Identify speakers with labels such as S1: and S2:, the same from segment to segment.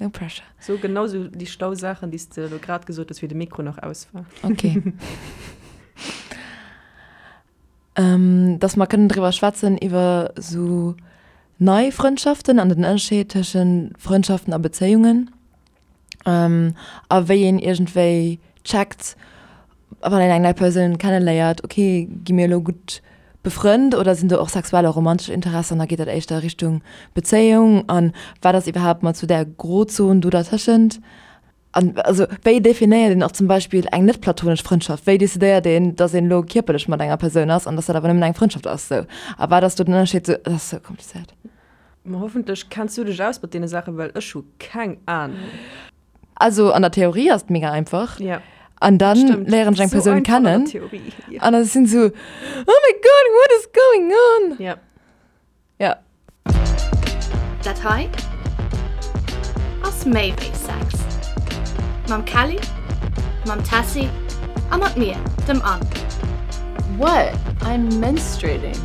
S1: No pressure.
S2: So genau sou déi schlau Saachen, déi s de elo grad gesot hues, wéi de Mikro nach aus war.
S1: Ok. Dass mer kënnen driwwer schwätzen iwwer sou nei Frëndschaften an den Ënnerscheed tëschent Frëndschaften a Bezéiungen. A wéi een iergendwéi checkt, wann een eng nei Persoun kenneléiert, ok, gi mir elo gutt befrënnt oder sinn do och sexuell a romantesch Interessen an da geet dat éischter Richtung Bezéiung an wat ass iwwerhaapt mat sou där Grozon do dertëschent? An also wéi definéiert een och zum Beispill eng net platonesch Frëndschaft? Wéi decidéiert een, datt een elo kierperlech mat enger Persoun ass an datt dat awer nëmmen eng Frëndschaft ass sou? A wat ass do den Ënnerscheed sou? Dat ass sou komplizéiert.
S2: Ma hoffentlech kenns du dech aus mat deene Saachen, well ech hu keng Ahnung.
S1: Also an der Theorie ass et mega einfach.
S2: Ja.
S1: An dann
S2: Stimmt.
S1: léieren ech eng
S2: So
S1: Persoun
S2: einfach an der
S1: kennen.
S2: Theorie. Ja.
S1: An da sinn sou, oh my God, what is going on?
S2: Ja.
S1: Ja.
S3: Dat hei ass méi wéi Sex. Mam Kelly, mam Tessy a mat mir, dem Anne.
S4: What? I'm menstruating.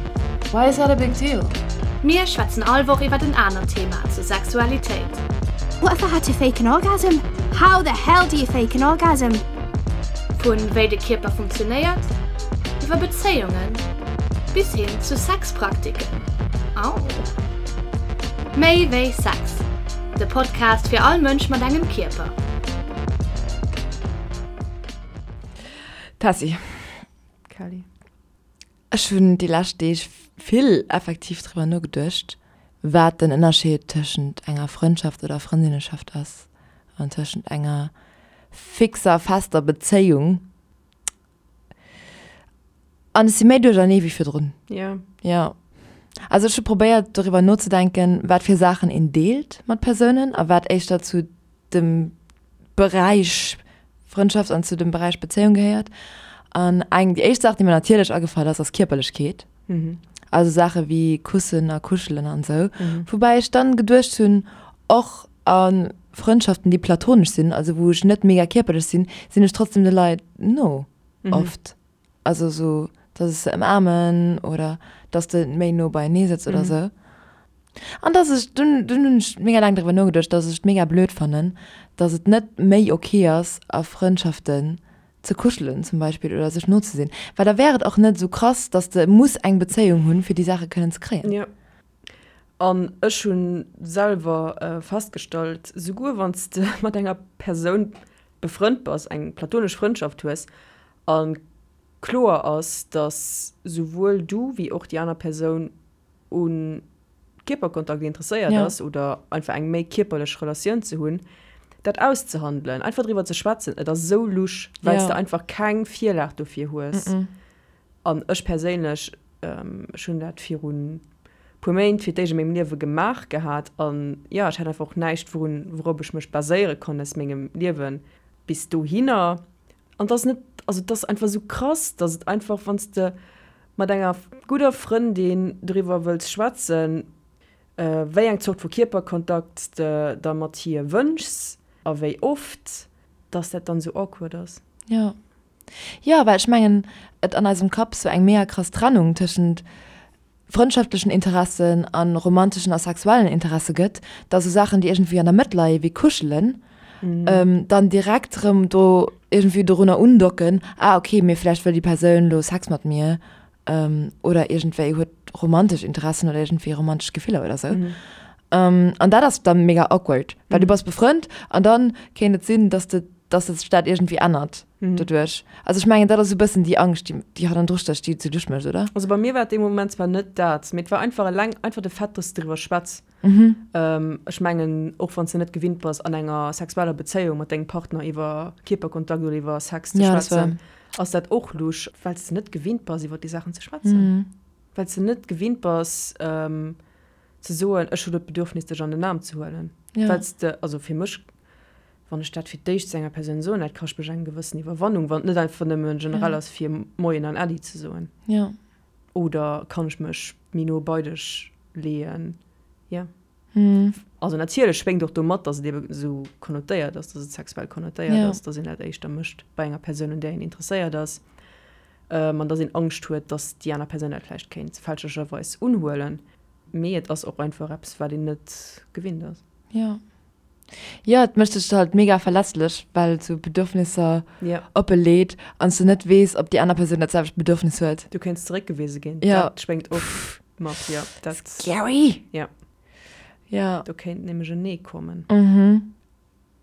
S4: Why is that a big deal?
S3: Mir schwätzen all Woch iwwert en anert Thema zur Sexualitéit.
S5: What if I had to fake an orgasm? How the hell do you fake an orgasm?
S3: Vu wéi de Kierper funktionéiert, iwwer Bezéiungen bis hin zu Sexpraktiken. Au! Méi wéi Sex, de Podcast fir all Mënsch mat engem Kierper.
S1: Tessy.
S2: Kelly.
S1: Ech hunn déi lescht Deeg vill effektiv driwwer nogeduecht, wat den Ënnerscheed tëschent enger Frëndschaft oder Frëndinneschaft ass an tëschent enger fixer, fester Bezéiung. An ech si méi duerchernee wéi virdrun.
S2: Jo.
S1: Jo. Also ech hu probéiert doriwwer nozedenken, wat fir Saachen een deelt mat Persounen a wat éischter zu dem Beräich Frëndschaft an zu dem Beräich Bezéiung gehéiert. An eng, déi éischt Saach, déi mir natierlech agefall ass, ass Kierperlechkeet. Also Saache wéi Kussen a Kuschelen an esou. Woubäi ech dann geduecht hunn, och a Frëndschaften, déi platonesch sinn, also wou ech net mega kierperlech sinn, sinn ech trotzdem de Leit no oft. Also esou, dass ech se ëmaarmen oder dass de méi no beienee sëtz oder esou. An dass ech, dunn, dunn hunn ech mega laang driwwer nogeduecht, dass ech et mega blöd fannen, dass et net méi ok ass, a Frëndschaften ze kuschelen zum Beispill oder sech no ze sinn. Well da wär et och net esou krass, dass de muss eng Bezéiung hunn, fir déi Saache kënnen ze kréien.
S2: Jo. An ech hu selwer festgestallt, souguer wann s de mat enger Persoun befrënnt bass, eng platonesch Frëndschaft hues a kloer ass, dass souwuel du wéi och déi aner Persoun u Kierperkontakt interesséiert ass oder einfach eng méi kierperlech Relatioun ze hunn, dat auszehandelen, einfach driwwer ze schwätzen, et ass esou lusch, well s de einfach keng Virlag dofir hues. An ech perséinlech, ech hunn dat virun puer Méint fir d'éischt a mengem Liewe gemaach gehat an jo, ech hat einfach och näischt, wourun, wourop ech mech baséiere konnt aus mengem Liewe bis dohinner. An et ass net, also et ass einfach esou krass, dass et einfach, wann s de mat enger gudder Frëndin doriwwer wëlls schwätzen, wéi eng Zort vu Kierperkontakt s de der mat hir wënschs a wéi oft, dass dat dann esou awkward ass.
S1: Jo. Jo, well ech mengen, et an eisem Kapp sou eng mega krass Trennung tëschent frëndschaftlechen Interessen a romanteschen a sexuellen Interesse gëtt, da sou Saachen, déi iergendwéi an der Mëtt leie wéi Kuschelen, dann direkt erëm do iergendwéi dorunner undocken, ah okay, mee vläicht wëll déi Persoun elo Sex mat mir oder iergendwéi huet romantesch Interessen oder iergendwéi romantesch Gefiller oder sou. An dat ass dann mega awkward, well du bass befrënnt an dann kéint et sinn, dass de, dass sech dat iergendwéi ännert doduerch. Also ech mengen, dat ass esou e bëssen déi Angscht, déi, déi hannendru stécht, déi et sou duerch mécht, oder?
S2: Also bei mir war et dee Moment zwar net dat, mee et war einfach eleng einfach de Fait, dass de driwwer schwätz. Ech mengen, och wann s de net gewinnt bass, an enger sexueller Bezéiung mat dengem Partner iwwer Kierperkontakt oder iwwer Sex ze schwätzen, ass dat och lusch, well s de net gewinnt bass, iwwer déi Saachen ze schwätzen. Well s de net gewinnt bass, ze soen, ech hu lo d'Bedürfnis, dech an den Aarm ze huelen. Well s de, also fir mech, wann ech dat fir d'éischt zu enger Persoun soen, dat kascht mech eng gewëssen Iwwerwannung, wann et net einfach nëmme generell ass, fir Moien an Äddi ze soen. Oder kann ech mech méi no bei dech leeën? Jo. Also natierlech schwéngt och do mat, datt et ebe esou konnotéiert ass, datt et sexuell konnotéiert ass, datt een dat éischter mécht bei enger Persoun, un där een interesséiert ass, an datt een Angscht huet, datt déi aner Persoun dat vläicht kéint fälschlecherweis unhuelen. Mee et ass och einfach eppes, wat een net gewinnt ass.
S1: Jo. Jo, et mécht dech halt mega verletzlech, well et sou Bedürfnisser oppe leet an s du net weess, ob déi aner Persoun dat selwecht Bedürfnis huet.
S2: Du kéints zeréckgewise ginn. Dat schwéngt och mat, jo.
S1: Dat. Scary!
S2: Jo.
S1: Jo.
S2: Do kéint nämlech en Nee kommen. Mhm.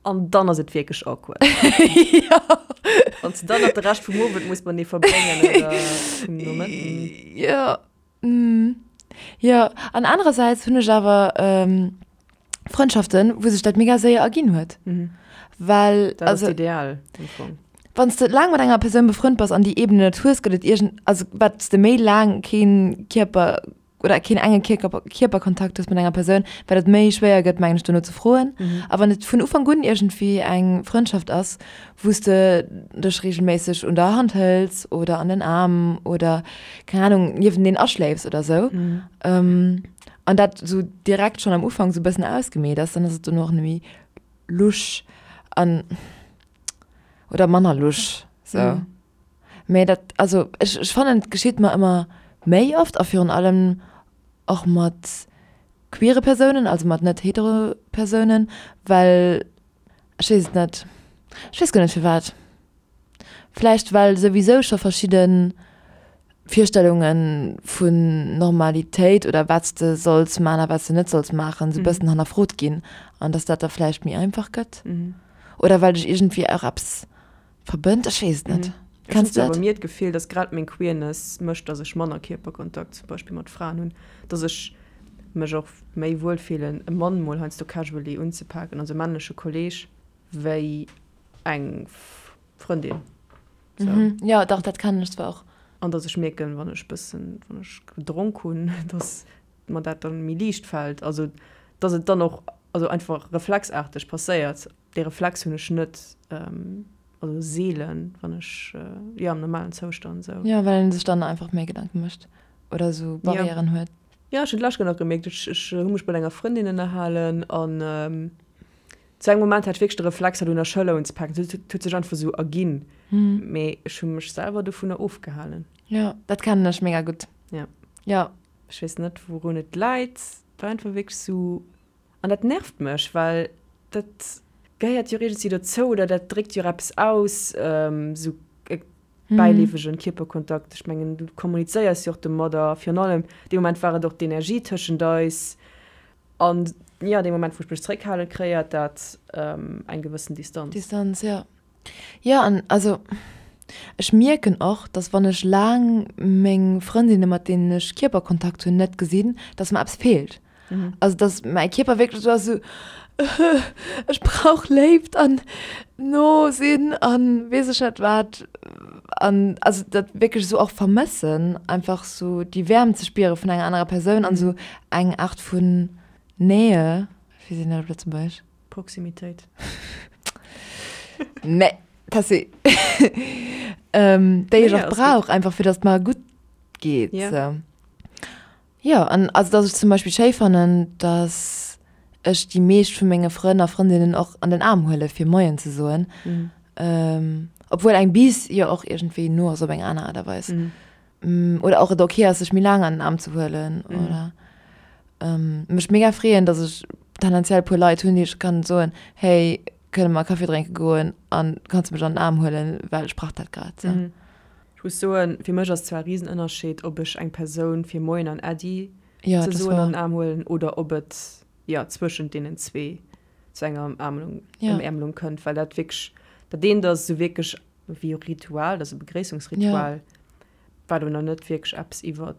S2: An dann ass et wierklech awkward.
S1: Jo.
S2: Wann s de dann nach de Rescht vum Owend muss matenee verbréngen oder vum Nomëtten.
S1: Jo. Jo, an anerersäits hunn ech awer Frëndschaften, wou sech dat mega séier erginn huet. Well,
S2: Dat ass ideal am Fong.
S1: Wann s de laang mat enger Persoun befrënnt bass an déi Ebene net hues, gëtt et iergend, also wat s de méi laang kee Kierper oder keen enge Kierker, Kierperkontakt hues mat enger Persoun, wat et méi schwéier gëtt, mengen ech, dono ze froen. A wann et vun Ufank un iergendwéi eng Frëndschaft ass, wou s de dech regelméisseg un der Hand hëls oder an den Aarm oder, keng Ahnung, niewenteen aschléifs oder sou, an dat sou direkt schonn am Ufank sou e bëssen ausgemeet ass, dann ass et dono och net méi lusch an, oder manner lusch, sou. Mee dat, also ech, ech fannen, et geschitt mer ëmmer méi oft a virun allem och mat queere Persounen, also mat net hetero Persounen, well Ech weess et net. Ech weess guer net firwat. Vläicht well souwisou scho verschidde Virstellunge vun Normalitéit oder wat s de solls maachen a wat s de net solls maachen, sou e bëssen hannerfrot ginn an datt dat da vläicht méi einfach gëtt. Oder well dech iergendwéi och eppes verbënnt. Ech weess et net.
S2: Ech hunn zwar bei mir d'Gefill, datt grad meng Queerness mécht, datt ech manner Kierperkontakt zum Beispill mat Fraen hunn, datt ech mech och méi wuel fillen, e Mann mol heiansdo casually unzepaken, also e männleche Kolleeg, wéi eng Frëndin.
S1: Sou. Jo, dach, dat kennen ech zwar och.
S2: An datt ech mierken, wann ech bëssen, wann ech gedronk hunn, datt mer dat dann méi liicht fält. Also datt et dann och, also einfach reflexaarteg passéiert. Dee Reflex hunn ech net, also seelen, wann ech, jo, am normalen Zoustand esou.
S1: Jo, well een sech dann einfach méi Gedanke mécht oder esou Barrièren huet.
S2: Jo, ech hunn d'lescht Kéier nach gemierkt, ech, ech hu mech mat enger Frëndin ënnerhalen an zu engem Moment hat ech wierklech de Reflex, hatt un der Schëller unzepaken. Et huet sech einfach esou erginn, mee ech hu mech selwer dovunner ofgehalen.
S1: Jo, dat kennen ech mega gutt.
S2: Jo.
S1: Jo.
S2: Ech weess net, wourun et läit. Et war einfach wierklech esou. An dat nervt mech, well dat gehéiert jo iergendwéi dozou oder dat dréckt jo och eppes aus, esou e bäileefegen Kierperkontakt. Ech mengen, du kommunizéiers jo och domadder. Virun allem dee Moment war et och d'Energie tëschent eis. An jo, dee Moment, wou ech mech zeréckhalen, kreéiert dat eng gewëssen Distanz.
S1: Distanz, jo. Jo, an also ech mierken och, dass wann ech laang meng Frëndinne mat deenen ech Kierperkontakt hunn net gesinn, dass mer eppes feelt. Also dass mäi Kierper wierklech esou ass, esou ech brauch Léift an no sinn an weess ech net wat. An also dat wierklech esou och vermëssen, einfach esou déi Wäermt ze spiere vun enger anerer Persoun an esou eng Aart vun Nähe, wéi seet een dat op Lëtzebuergesch?
S2: Proximitéit.
S1: Nee, Tessy. ähm, déi ech och brauch, einfach fir dass et mer gutt geet.
S2: Ja.
S1: So. Jo, an also dass ech zum Beispill schéi fannen, dass ech déi meescht vu menge Frënn a Frëndinnen och an den Aarm huele fir Moien ze soen.
S2: Mhm.
S1: Ähm, obwuel eng Bis jo och iergendwéi no ass op eng aner Aart a Weis.
S2: Mhm.
S1: Oder och et ok ass sech méi laang an den Aarm ze huelen oder mech mega freeën, datt ech tendenziell e puer Leit hunn, déi ech kann soen, hey kënne mer Kaffi drénke goen an kanns de mech an den Aarm huelen, well ech brauch dat grad sou.
S2: Ech muss soen, fir mech ass zwar e Risenënnerscheed, ob ech eng Persoun fir Moien an Äddi
S1: Ja,
S2: ze
S1: dat ass
S2: soen an
S1: wahr.
S2: den Aarm huelen oder ob et jo zwëschent deenen zwee zu enger Ëmaarmung
S1: Ja.
S2: Ëmäermelung kënnt, well dat wierklech dat eent ass esou wierklech wéi e Ritual, dat ass e Begréissungsritual, wat awer nach net wierklech eppes iwwer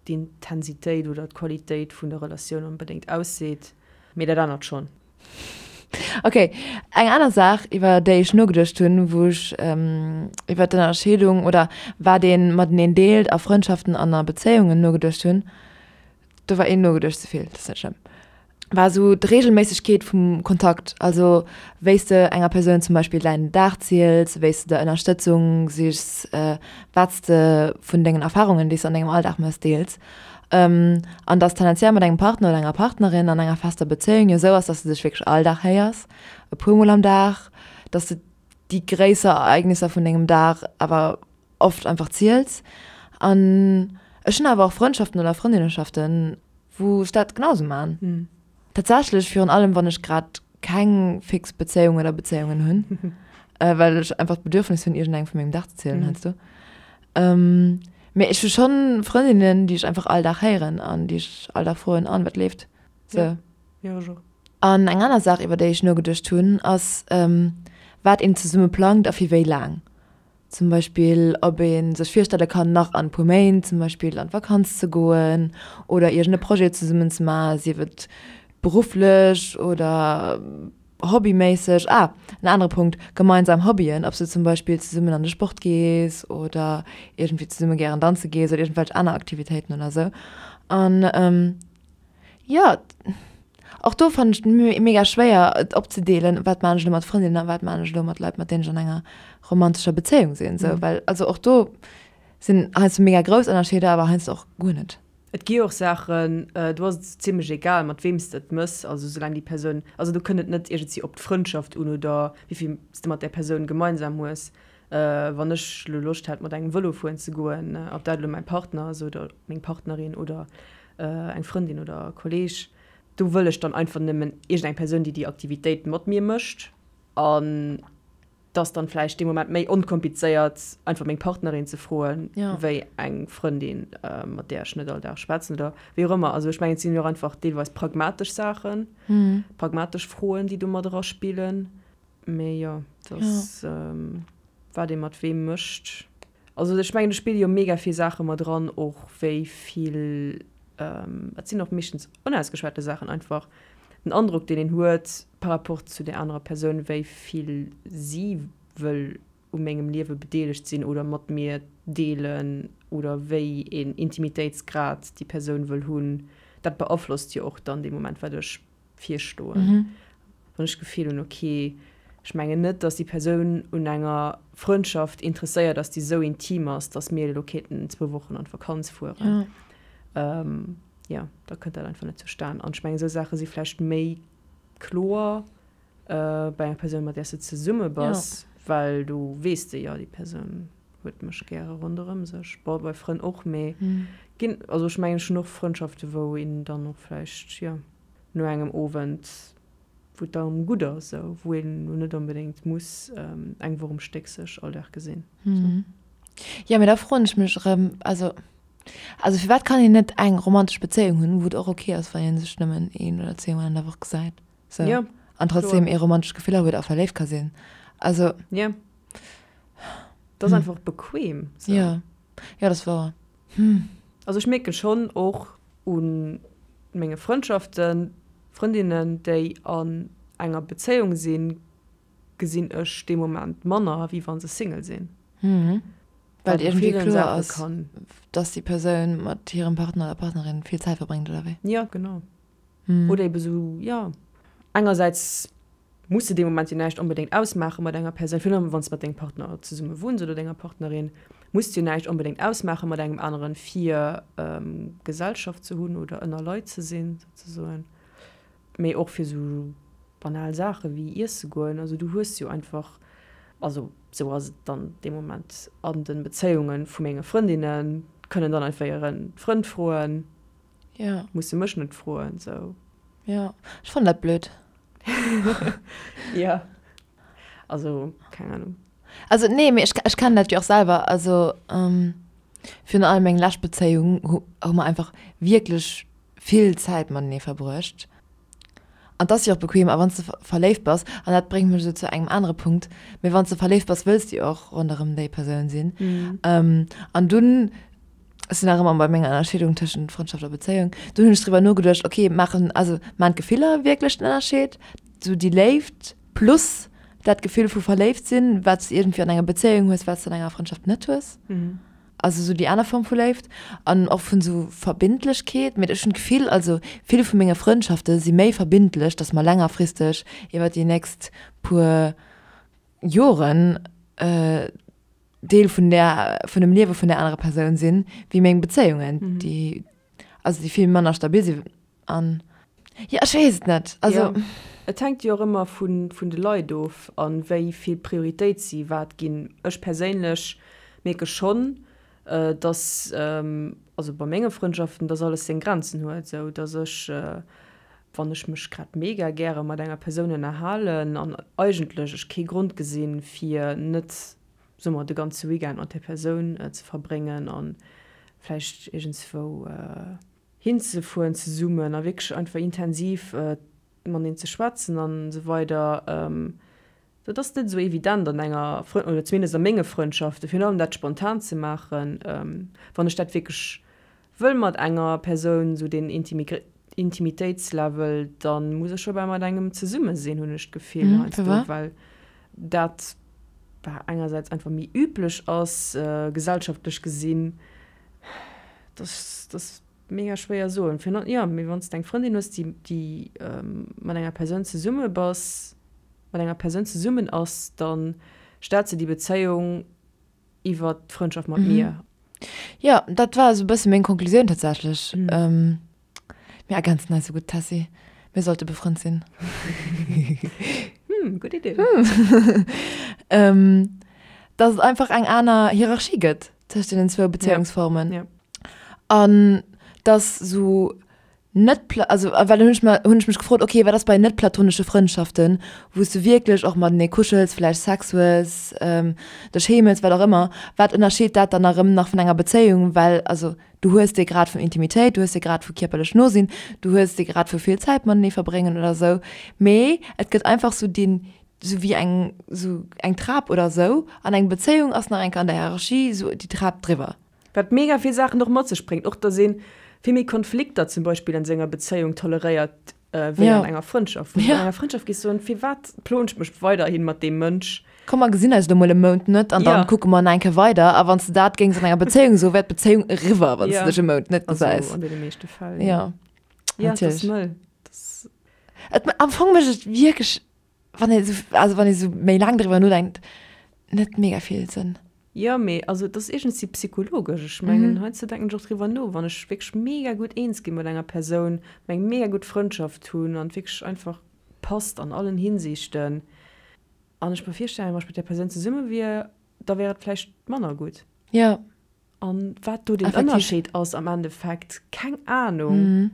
S2: d'Intensitéit oder d'Qualitéit vun der Relatioun onbedéngt ausseet, mee dat anert schonn.
S1: Ok, eng aner Saach iwwer déi ech nogeduecht hunn, wou ech iwwer d'Ënnerscheedung oder wat ee mateneen deelt a Frëndschaften an a Bezéiungen nogeduecht hunn, do war een nogeduecht ze vill, dat ass net schlëmm, war esou d'Reegelméissegkeet vum Kontakt, also wéi s de enger Persoun zum Beispill däin Dag ziels, wéi s de der Ënnerstëtzung sichs, wat s de vun dengen Erfarungen, déi s de an dengem Alldag méchs, deels. An dass tendenziell mat engem Partner oder enger Partnerin an enger fester Bezéiung jo esou ass, dass de dech wierklech all Dag héiers, e puer Mol am Dag, dass de déi gréisser Ereignisser vun dengem Dag awer oft einfach ziels. An ech hunn awer och Frëndschaften oder Frëndinneschaften, wou ech dat genau esou man. Tatsächlech virun allem wann ech grad. keng fix Bezéiung oder Bezéiungen hunn, well ech einfach d'Bedürfnis hunn, iergendengem vu mengem Dag ze zielen heiansdo. Mee ech hu schonn Frëndinnen, déi ech einfach all Dag héieren an déi ech all Dag froen, An, wat leeft? Sou.
S2: Jo, ech och.
S1: An eng aner Saach, iwwer déi ech nogeduecht hunn, ass, wat een zesumme plangt a fir wéi laang. Zum Beispill, ob ee sech virstelle kann, nach an e puer Méint zum Beispill an d'Vakanz ze goen oder iergend e Projet zesummen ze maachen, sief et berufflech oder hobbyméisseg. Ah, en anere Punkt, gemeinsam Hobbyen, ob s du zum Beispill zesummen an de Sport gees oder iergendwéi zesumme gären danze gees oder iergendwelch aner Aktivitéiten oder sou. An Jo, och do fannen ech et mega schwéier et opzedeelen, wat maan ech elo mat Frëndinnen a wat maan ech elo mat Leit mat deenen ech an enger romantescher Bezéiung sinn esou, well also och do sinn heiansdo mega grouss Ënnerscheeder, awer heiansdo och guer net.
S2: Et gi och Saachen, do ass et zimlech egal mat weem s de et mëss, also soulaang déi Persoun, also do kënnt et net iergendwéi op d'Frëndschaft un oder wéi vill s de mat där Persoun gemeinsam hues. Wann ech elo Loscht hätt mat engem Vëlo fueren ze goen, ob dat elo mäi Partner ass oder meng Partnerin oder eng Frëndin oder e Kolleeg, do wëll ech dann einfach nëmmen iergendeng Persoun, déi déi Aktivitéit mat mir mécht. An et ass dann vläicht dee Moment méi onkomplizéiert, einfach meng Partnerin ze froen, wéi eng Frëndin, mat där ech net all Dag schwätzen oder wéi och ëmmer. Also ech mengen, et sinn jo och einfach deelweis pragmatesch Saachen, pragmatesch Froen, déi do mat eraspillen. Mee jo, dass wat ee mat weem mécht. Also ech mengen do spille jo mega vill Saache mat eran, och wéi vill, dat sinn och meeschtens onausgeschwate Saachen einfach, den Androck deen een huet par rapport zu där anerer Persoun, wéi vill si wëll u mengem Liewe bedeelegt sinn oder mat mir deelen oder wéi een Intimitéitsgrad déi Persoun wëll hunn, dat beaflosst jo och dann dee Moment wat ech virstoen. Wann ech d'Gefill hunn, ok, ech mengen net, datt déi Persoun un enger Frëndschaft interesséiert ass, déi esou intim ass, datt mir elo kéinten zwou Wochen an d'Vakanz fueren, jo, da kënnt dat einfach net zustan. An ech mengen, esou Saache si vläicht méi kloer bei enger Persoun, mat där s de zesumme bass, well do weess de, jo, déi Persoun huet mech gäre ronderëm sech. Bon, bei Frënn och, mee ginn, also ech mengen, ech hunn och Frëndschafte wou een dann och vläicht, jo, no engem Owend, wou et dann gutt ass, esou, wou een elo net onbedéngt muss eng Woch um Stéck sech all Dag gesinn.
S1: Sou. Jo, mee da froen ech mech erëm, also, also firwat kann een net eng romantesch Bezéiung hunn, wou et och ok ass, wann ee sech nëmmen een oder zweemol an der Woch gesäit, sou,
S2: Jo,
S1: an trotzdem
S2: kloer.
S1: ee romantesch Gefiller huet a verléift ka sinn? Also.
S2: Jo. Dat ass einfach bequem,
S1: sou. Jo, jo, dat ass wouer.
S2: Also ech mierken schonn och u menge Frëndschaften, Frëndinnen déi an enger Bezéiung sinn, gesinn ech dee Moment manner wéi wa se Single sinn.
S1: Well et iergendwéi kloer ass, dass déi Persoun mat hirem Partner oder Partnerin vill Zäit verbréngt, oder wéi?
S2: Jo, genau. Oder ebe sou, jo, engersäits muss de dee Moment jo näischt onbedéngt ausmaache mat enger Persoun, virun allem wann s de mat dengem Partner zesumme wunns oder denger Partnerin, muss de jo näischt onbedéngt ausmaache mat engem aneren, fir Gesellschaft ze hunn oder ënner Leit ze sinn souzesoen. Mee och fir sou banal Saache wéi iesse goen. Also du hues jo einfach, also sou ass et dann dee Moment an de Bezéiunge vu menge Frëndinnen, kënnen dann einfach hire Frënd froen,
S1: Ja.
S2: Musse mech net froen, sou.
S1: Ja, ech fannen dat blöd.
S2: Ja. Also, keng Ahnung.
S1: Also, nee, mee ech, ech kennen dat jo och selwer. Also, ähm, virun allem meng lescht Bezéiung hu, hu mer einfach wierklech vill Zäit matenee verbruecht. An 't ass jo och bequem, a wann s de verléift bass, an dat bréngt mech esou zu engem anere Punkt, mee wann s de verléift bass, wëlls de jo och ronderëm déi Persoun sinn. An dunn, ech sinn nach ëmmer bei menger Ënnerscheedung tëschent Frëndschaft a Bezéiung, dunn hunn ech driwwer nogeduecht, okay, maachen, also maachen d'Gefiller wierklech den Ënnerscheed? Sou déi Léift plus dat Gefill vu verléift sinn, wat s de iergendwéi an enger Bezéiung hues, wat s de an enger Frëndschaft net hues? Also sou déi aner Form vu Léift an och vun sou Verbindlechkeet. Mee ech hunn d'Gefill, also vill vu menge Frëndschafte si méi verbindlech, datt mer längerfristeg iwwer déi nächst puer Joren Deel vun där, vun dem Liewe vun där anerer Persoun sinn, wéi meng Bezéiungen, déi, also déi vill manner stabil sinn. An, jo, ech weess et net. Also.
S2: Jo, et hänkt jo och ëmmer vun, vun de Leit of a wéi vill Prioritéit si wat ginn. Ech perséinlech mierke schonn, dass, also bei menge Frëndschaften, dass alles seng Grenzen huet, esou dass ech. Wann ech mech grad mega gäre mat enger Persoun ënnerhalen an eigentlech ech kee Grond gesinn, fir net, soe mer, de ganze Weekend mat där Persoun ze verbréngen a vläicht iergendswou hinzefueren zesummen a wierklech einfach intensiv mateneen ze schwätzen an esou weider, Dat ass net esou evident an enger Frënd-, oder zumindest a menge Frëndschaften, virun allem dat spontan ze maachen. Wann ech dat wierklech wëll mat enger Persoun, esou deen Intimitéitslevel, da muss ech scho bal mat engem zesumme sinn, hunn ech d'Gefill heiansdo, well dat bah engersäits einfach méi üblech ass, gesellschaftlech gesinn. Dat ass mega schwéier soen. Virun allem, jo, mee wann s de eng Frëndin hues, déi, déi mat enger Persoun zesumme bass, mat enger Persoun zesummen ass, da stellt se déi Bezéiung iwwer d'Frëndschaft mat mir.
S1: Jo, dat war esou e bësse meng Konklusioun tatsächlech. Mir ergänzen eis esou gutt, Tessy. Mir sollte befrënnt sinn.
S2: Hm, gutt Idee.
S1: Dass et einfach eng aner Hierarchie gëtt tëscht deenen zwou Bezéiungsformen. Ja. An dass sou net also well dann hunn ech mer hunn ech mech gefrot, okay, wat ass bei net platonesche Frëndschaften, wou s du wierklech och matenee kuschels, vläicht Sex hues, dech heemels, wat och ëmmer, wat ënnerscheet dat dann erëm nach vun enger Bezéiung, well also du hues dee Grad vun Intimitéit, du hues dee Grad vu kierperlech no sinn, du hues dee Grad vu vill Zäit matenee verbréngen oder sou, mee et gëtt einfach sou deen sou wéi eng sou eng Trap oder sou an eng Bezéiung ass nach eng Kéier an der Hierarchie sou déi Trap driwwer.
S2: Wat mega vill Saachen och mat sech bréngt, och dass ee vill méi Konflikter zum Beispill an senger Bezéiung toleréiert wéi an enger Frëndschaft. Wou du an enger Frëndschaft géifs soen, firwat ploen ech mech weiderhi mat deem Mënsch?
S1: Komm mer gesinn eis elo mol e Mount net an dann kucke mer nach eng Kéier weider. A wann s de dat géings an enger Bezéiung soen, wär d'Bezéiung eriwwer, wann s de dech e Mount net gesäis.
S2: Also an deene meeschte Fäll,
S1: jo.
S2: Jo,
S1: natierlech.
S2: Dat ass mëll. Dat
S1: Et, am Fong mécht et wierklech, wann ee sou, also wann ee sou méi laang driwwer nodenkt, net mega vill Sënn.
S2: Jo, mee also et ass iergendwéi psychologesch. Ech mengen, heiansdo denken ech och driwwer no, wann ech wierklech mega gutt eens gi mat enger Persoun, mer eng mega gutt Frëndschaft hunn an et wierklech einfach passt an allen Hinsichten an ech mer virstellen, wann ech mat där Persoun zesumme wier, da wär et vläicht manner gutt.
S1: Jo.
S2: An wat do den Ënnerscheed ass am Endeffekt, keng Anung.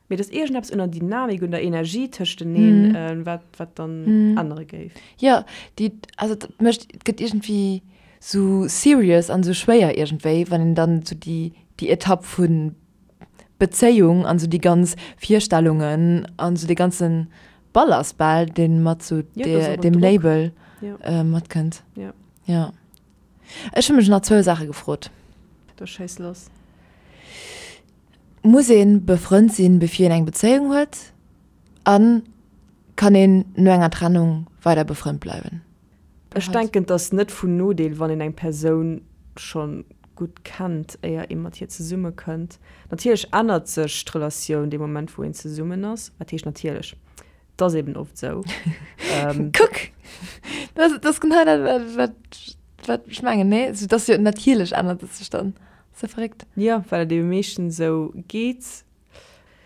S2: Mee et ass iergendeppes un der Dynamik, un der Energie tëschteneen, wat, wat dann ännere géif.
S1: Jo, déi, also dat mécht, et gëtt iergendwéi sou serious an sou schwéier iergendwéi, wann een dann sou déi, déi Etapp vu Bezéiung an sou déi ganz Virstellungen an sou dee ganze Ballast bal, dee mat sou deem Label matkënnt. Jo. Ech hu mech nach zwou Saache gefrot.
S2: Da schéiss lass.
S1: Muss een befrënnt sinn bevir een eng Bezéiung huet? An kann een no enger Trennung weider befrënnt bleiwen?
S2: Ech denken et ass net vun Nodeel wann een eng Persoun schon gutt kennt éier ee mat hir zesumme kënnt. Natierlech ännert sech d'Relatioun dee Moment wou een zesummen ass. Wat heescht natierlech? Et ass eben oft sou.
S1: Kuck! Dat ass genau dat wat wat ech mengen, nee? Sou dass jo natierlech ännert et sech dann. Ass ja verréckt.
S2: Jo, well et ebe meeschtens esou geet.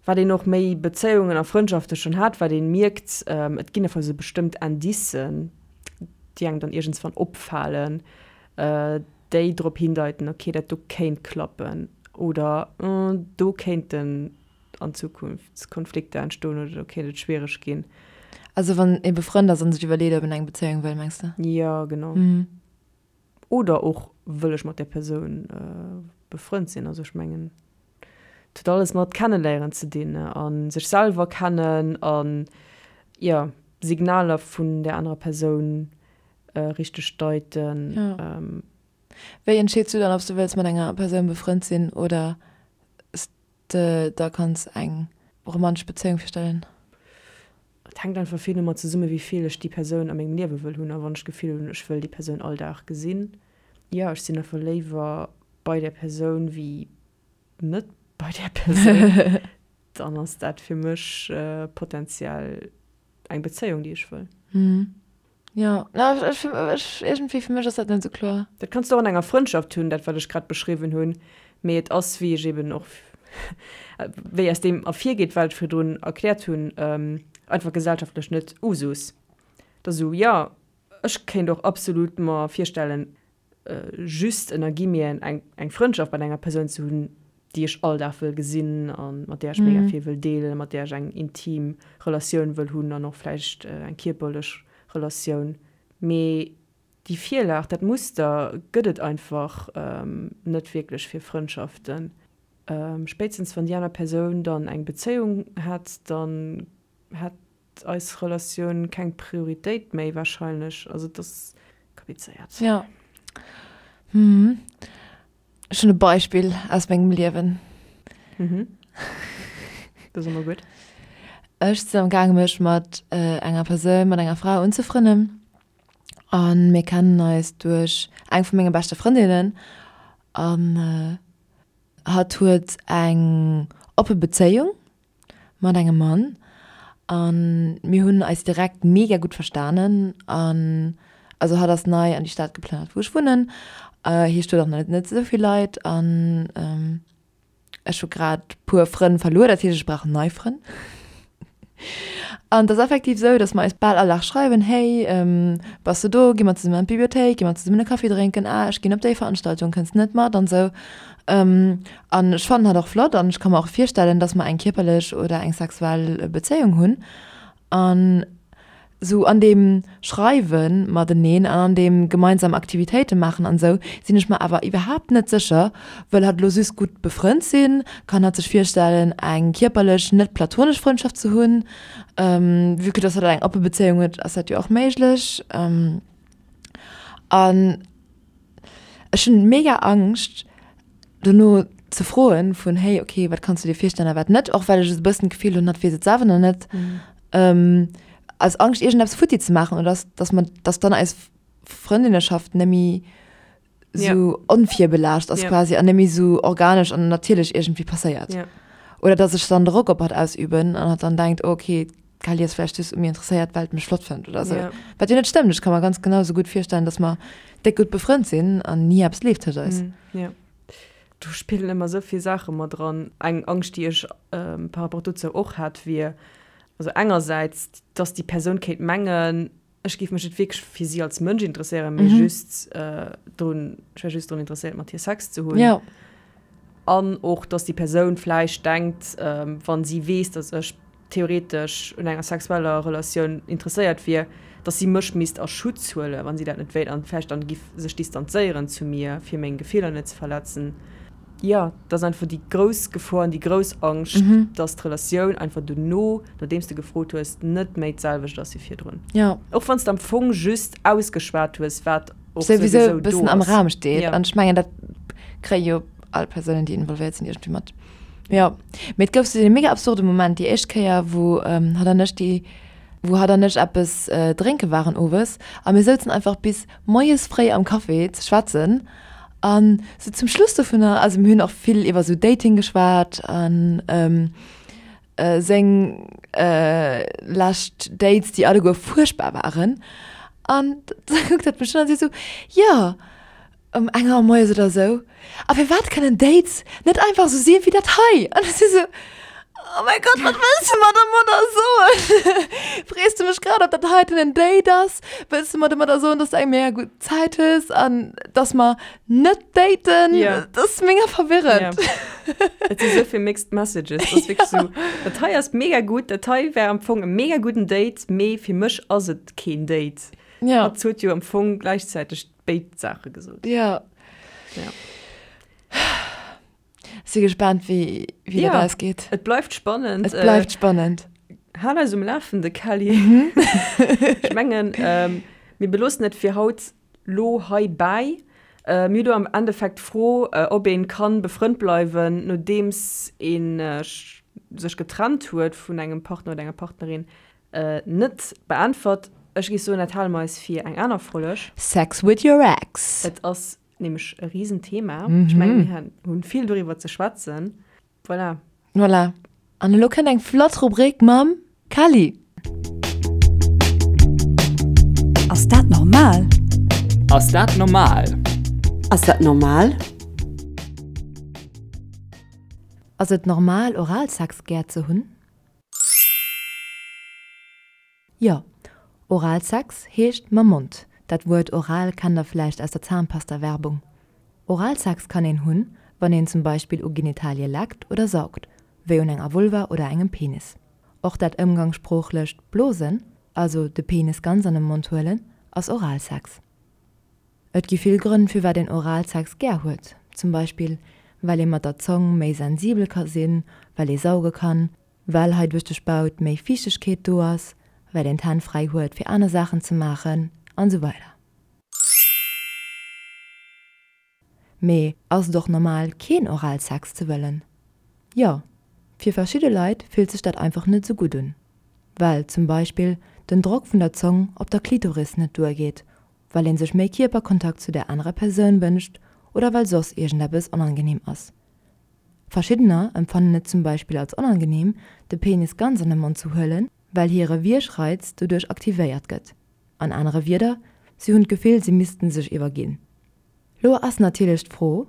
S2: Wat een och méi Bezéiungen a Frëndschafte schonn hat, wat een mierkt, et ginn einfach esou bestëmmt Indicen, déi engem dann iergendswann opfalen, déi drop hindeiten, okay, dat do kéint klappen oder do kéinten an Zukunft Konflikter entstoen oder do kéint et schwiereg ginn.
S1: Also wann ee befrënnt ass an sech iwwerleet, ob een eng Bezéiung wëll, mengs de?
S2: Jo, genau. Oder och, wëll ech mat där Persoun befrënnt sinn? Also ech mengen, et huet alles mat kenneléieren ze dinn a sech selwer kennen an, jo, Signaler vun där anerer Persoun richteg deiten.
S1: Jo. Wéi entscheets du dann, ob s du wëlls mat enger Persoun befrënnt sinn oder s de der kanns eng romantesch Bezéiung virstellen?
S2: Et hänkt einfach vill domat zesummen, wéi vill ech déi Persoun a mengem Liewe wëll hunn a wann ech d'Gefill hunn, ech wëll déi Persoun all Dag gesinn. Jo, ech sinn einfach léiwer bei där Persoun wéi net bei där Persoun. Dann ass dat fir mech potenziell eng Bezéiung, déi ech wëll.
S1: Jo, ech, ech, iergendwéi fir mech ass dat net esou kloer.
S2: Dat kanns de och an enger Frëndschaft hunn, dat wat ech grad beschriwwen hunn, mee et ass, wéi ech eben och, wéi aus deem ervirgeet, wat ech virdrun erkläert hunn, einfach gesellschaftlech net Usus. Et ass esou, jo, ech kéint och absolut mer virstellen, just ënner Guillemeten eng, eng Frëndschaft mat enger Persoun ze hunn. déi ech all Dag wëll gesinn a mat där ech mega vill wëll deelen, mat där ech eng intim Relatioun wëll hunn an och vläicht eng kierperlech Relatioun. Mee déi Virlag, dat Muster gëtt et einfach net wierklech fir Frëndschaften. Spéitstens wann déi aner Persoun dann eng Bezéiung hätt, dann hätt eis Relatioun keng Prioritéit méi wahrscheinlech. Also et ass komplizéiert.
S1: Jo. Hm. Ech hunn e Beispill aus mengem Liewen.
S2: Mhm. Dat ass ëmmer gutt.
S1: Ech sinn am gaange mech mat enger Persoun, mat enger Fra unzefrënnen a mir kennen eis duerch eng vu menge beschte Frëndinnen an hatt huet eng oppe Bezéiung mat engem Mann an mir hunn eis direkt mega gutt verstanen an also hatt ass nei an déi Stad geplënnert wou ech wunnen, hie huet och nach net esou vill Leit an ech hu grad puer Frënn verluer, dat heescht ech brauch nei Frënn. An et ass effektiv esou, datt mer eis bal all Dag schreiwen, hey bass de do, gi mer zesummen an d'Bibliothéik, gi mer zesummen e Kaffi drénken, ah ech ginn op déi Veranstaltung, kënns de net mat an esou. An ech fannen hatt och flott an ech ka mer och virstellen, dass mer eng kierperlech oder eng sexuell Bezéiung hunn. An sou an deem Schreiwe mateneen an an deem gemeinsam Aktivitéite maachen an esou sinn ech mer awer iwwerhaapt net sécher, wëll hatt elo just gutt befrënnt sinn? Kann hatt sech virstellen, eng kierperlech, net platonesch Frëndschaft ze hunn? Vue que dass hatt eng oppe Bezéiung huet, ass dat jo och méiglech. An Ech hunn mega Angscht dono ze froen vun hey okay wat kanns du dir virstellen a wat net, och well ech esou e bëssen d'Gefill hunn hatt weess et selwer nach net, aus Angscht iergendeppes futti ze maachen oder dass dass mer dass dann eis Frëndinneschaft net méi esou onvirbelaascht ass quasi an net méi esou organesch an natierlech iergendwéi passéiert. Oder dass ech dann Drock op hatt ausüben an hatt dann denkt oh okay D'Kelly ass vläicht just u mir interesséiert, well et mech flott fënnt oder sou. Ja. Wat jo net stëmmt. Ech ka mer ganz genau sou gutt virstellen, dass mer déck gutt befrënnt sinn an ni eppes leeft tëscht eis.
S2: Mm, ja. Do spillen ëmmer sou vill Saache mat dran. Eng Angscht, déi ech par rapport dozou och hat, wier, also engersäits, dass déi Persoun kéint mengen, ech géif mech net wierklech fir si als Mënsch interesséieren, mee just drun, ech wär just drun interesséiert, mat hir Sex ze hunn.
S1: Ja.
S2: An och, dass déi Persoun vläicht denkt, wa si weess, dass ech theoretesch un enger sexueller Relatioun interesséiert wier, dass si mech misst a Schutz huelen, wa si dat net wéilt, an vläicht dann giff sech distanzéieren zu mir, fir meng Gefiller net ze verletzen. Jo, dat ass einfach déi grouss Gefor an déi grouss Angscht, dass d'Relatioun einfach dono, nodeems de gefrot hues, net méi d'selwecht ass wéi virdrun.
S1: Jo.
S2: Och wann s de am Fong just ausgeschwat hues, wat
S1: och souwisou e bëssen am Raum steet. An ech mengen, dat kréie jo all Persounen, déi involvéiert sinn, iergendwéi mat. Jo, mee et gouf sou dee mega absurde Moment, déi éischt Kéier, wou hatt an ech déi, wou hatt an ech eppes drénke waren owes a mir souzen einfach bis moies fréi am Café ze schwätzen. An sou zum Schluss dovunner, also mir hunn och vill iwwer sou Dating geschwat an seng lescht Dates, déi alleguer fuerchtbar waren. An da kuckt hatt mech un an seet sou, jo, ëm eng Auer moies oder sou, a firwat kënnen Dates net einfach sou si wéi dat hei? An ech si sou, Oh mäi Gott, wat wëlls de mer domadder soen? Frees de mech grad, ob dat heiten en Date ass? Wëlls de mer domadder soen, dass du eng mega gutt Zäit hues an dass mer net daten?
S2: Ja.
S1: Dat ass mega verwirrend.
S2: Ja. Et si sou vill mixed messages. Dat ass wierklech sou, dat hei ass mega gutt, dat hei wär am Fong e mega gudden Date, mee fir mech ass et keen Date.
S1: Ja.
S2: Hatt huet jo am Fong gläichzäiteg béid Saache gesot.
S1: Ja.
S2: Ja.
S1: Si gespaant wéi wéi dat
S2: Ja,
S1: ausgeet.
S2: et bleift spannend.
S1: Et bleift spannend.
S2: Hal eis um Lafende, Kelly. Ech mengen, mir beloossen et fir haut lo heibäi. Mir hu do am Endeffekt d'Fro, ob een kann befrënnt bleiwen, nodeems een sech getrennt huet vun engem Partner oder enger Partnerin, net beäntwert. Ech géif soen, dat hale mer eis fir eng aner Folg.
S1: Sex with your ex.
S2: Et ass Nämlech e Risenthema. Ech mengen, mir hunn vill doriwwer ze schwätzen. Voilà.
S1: Voilà. An elo kënnt eng flott Rubrik mam Kelly.
S6: Ass dat normal?
S7: Ass dat normal?
S6: Ass dat normal?
S1: Ass et normal, Oralsex gär ze hunn? Jo, Oralsex heescht mam Mond. Dat Wuert oral kennt der vläicht aus der Zahnpasta-Werbung. Oralsex kann een hunn, wann een zum Beispill u Genitalie leckt oder saugt, wéi un enger Vulva oder engem Penis. Och dat ëmgangssproochlecht Blosen, also de Penis ganz an de Mond huelen, ass Oralsex. Et gi vill Grënn firwat een Oralsex gär huet, zum Beispill well ee mat der Zong méi sensibel ka sinn, well ee sauge kann, well hei duerch de Spaut méi Fiichtegkeet do ass, well een d'Hänn fräi huet fir aner Saachen ze maachen an esou weider. Mee ass et och normal keen Oralsex ze wëllen? Jo, fir verschidde Leit fillt sech dat einfach net esou gutt un, well zum Beispill den Drock vun der Zong op der Klitoris net duergeet, well een sech méi Kierperkontakt zu der anerer Persoun wënscht oder well soss iergendeppes onangeneem ass. Verschiddener empfannen et zum Beispill als onangeneem, de Penis ganz an de Mond ze huelen, well hire Wiergreiz doduerch aktivéiert gëtt. An anere Wierder, si hunn d'Gefill, si missten sech iwwerginn. Lo ass natierlech d'Fro,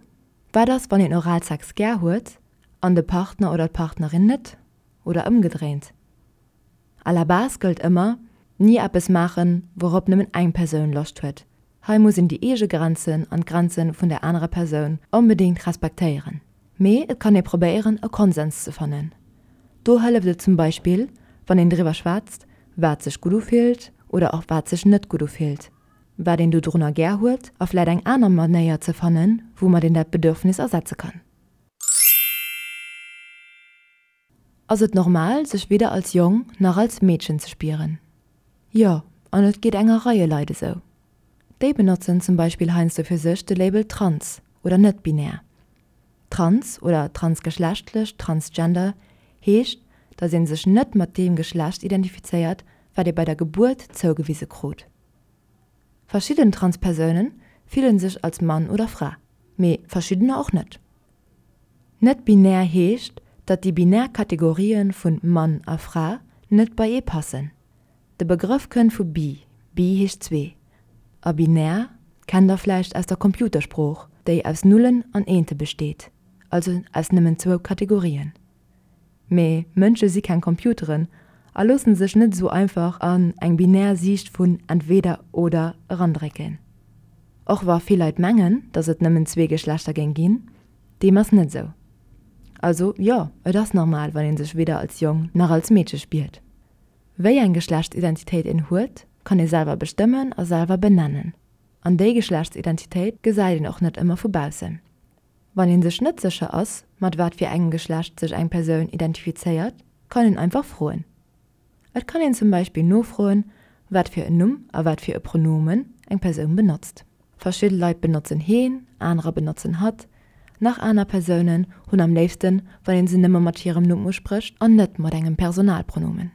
S1: Wat ass, wann een Oralsex gär huet an de Partner oder d'Partnerin net? Oder ëmgedréint? À la base gëllt ëmmer, Ni eppes maachen, wourop nëmmen eng Persoun Loscht huet. Hei muss een déi eege Grenzen an d'Grenze vun der anerer Persoun onbedéngt respektéieren. Mee et kann ee probéieren, e Konsens ze fannen. Do hëlleft et zum Beispill, wann een driwwer schwätzt, wat sech gutt ufillt oder och wat sech net gutt ufillt, wat een dodrunner gär huet a vläit eng aner Manéier ze fannen, woumat een dat Bedürfnis ersetze kann. Ass et normal, sech weder als Jong nach als Meedchen ze spieren? Jo, an et geet enger Reie Leit esou. Déi benotzen zum Beispill heiansdo fir sech de Label trans oder net-binär. Trans oder transgeschlechtlech, transgender, heescht, datt ee sech net mat deem Geschlecht identifizéiert, wat ee bei der Gebuert zougewise krut. Verschidden Transpersoune fillen sech als Mann oder Fra, mee verschiddener och net. Net-binär heescht, datt déi binär Kategorië vun Mann a Fra net bei ee passen. De Begrëff kënnt vu bi, bi heescht zwee, a binär kennt der vläicht aus der Computersprooch, déi aus Nullen an Eente besteet, also aus nëmmen zwou Kategorien. Mee Mënsche si keng Computeren a loosse sech net esou einfach an eng binär Siicht vun entweder oder erandrécken. Och wa vill Leit mengen, datt et nëmmen zwee Geschlechter géing ginn, deem ass net esou. Also jo, et ass normal, wann ee sech weder als Jong nach als Meedche spiert. Wéi eng Geschlechtsidentitéit een huet, kann ee selwer bestëmmen a selwer benennen. An déi Geschlechtsidentitéit gesäit een och net ëmmer vu baussen. Wann een sech net sécher ass, mat wat fir engem Geschlecht sech eng Persoun identifizéiert, kann een einfach froen. Et kann een zum Beispill nofroen, wat fir en Numm a wat fir e Pronomen eng Persoun benotzt. Verschidde Leit benotzen heen, anerer benotzen hatt, nach aner Persounen hunn am léifsten, wann een se nëmme mat hirem Numm usprécht an net mat engem Personalpronomen.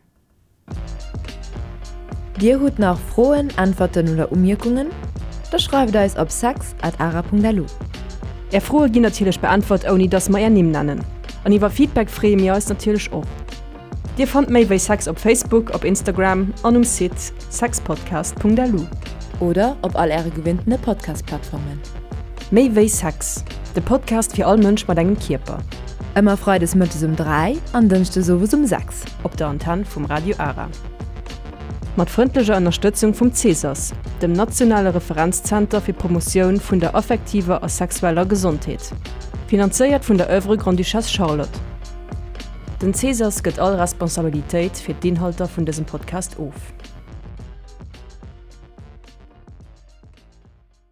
S1: Dir hutt nach Froen, Äntwerten oder Umierkungen? Da schreift eis op sex at ara.lu.
S2: Är Froe ginn natierlech beäntwert ouni dass mer är Nimm nennen. An iwwer Feedback freeë mir eis natierlech och. Dir fannt méi wéi Sex op Facebook, op Instagram an um Site sexpodcast.lu.
S1: Oder op all äre gewinntene Podcast-Plattformen.
S2: Méi wéi Sex, de Podcast fir all Mënsch mat engem Kierper.
S1: Ëmmer freides mëttes um 3 an dënschdes owes um 6.
S2: Op der Antenn vum Radio Ara. Mat frëndlecher Ënnerstëtzung vum CESAS, dem nationale Referenzzenter fir d'Promotioun vun der affektiver a sexueller Gesondheet. Finanzéiert vun der Oeuvre Grande-Duchesse Charlotte. Den CESAS gëtt all Responsabilitéit fir d'Inhalter vun dësem Podcast of.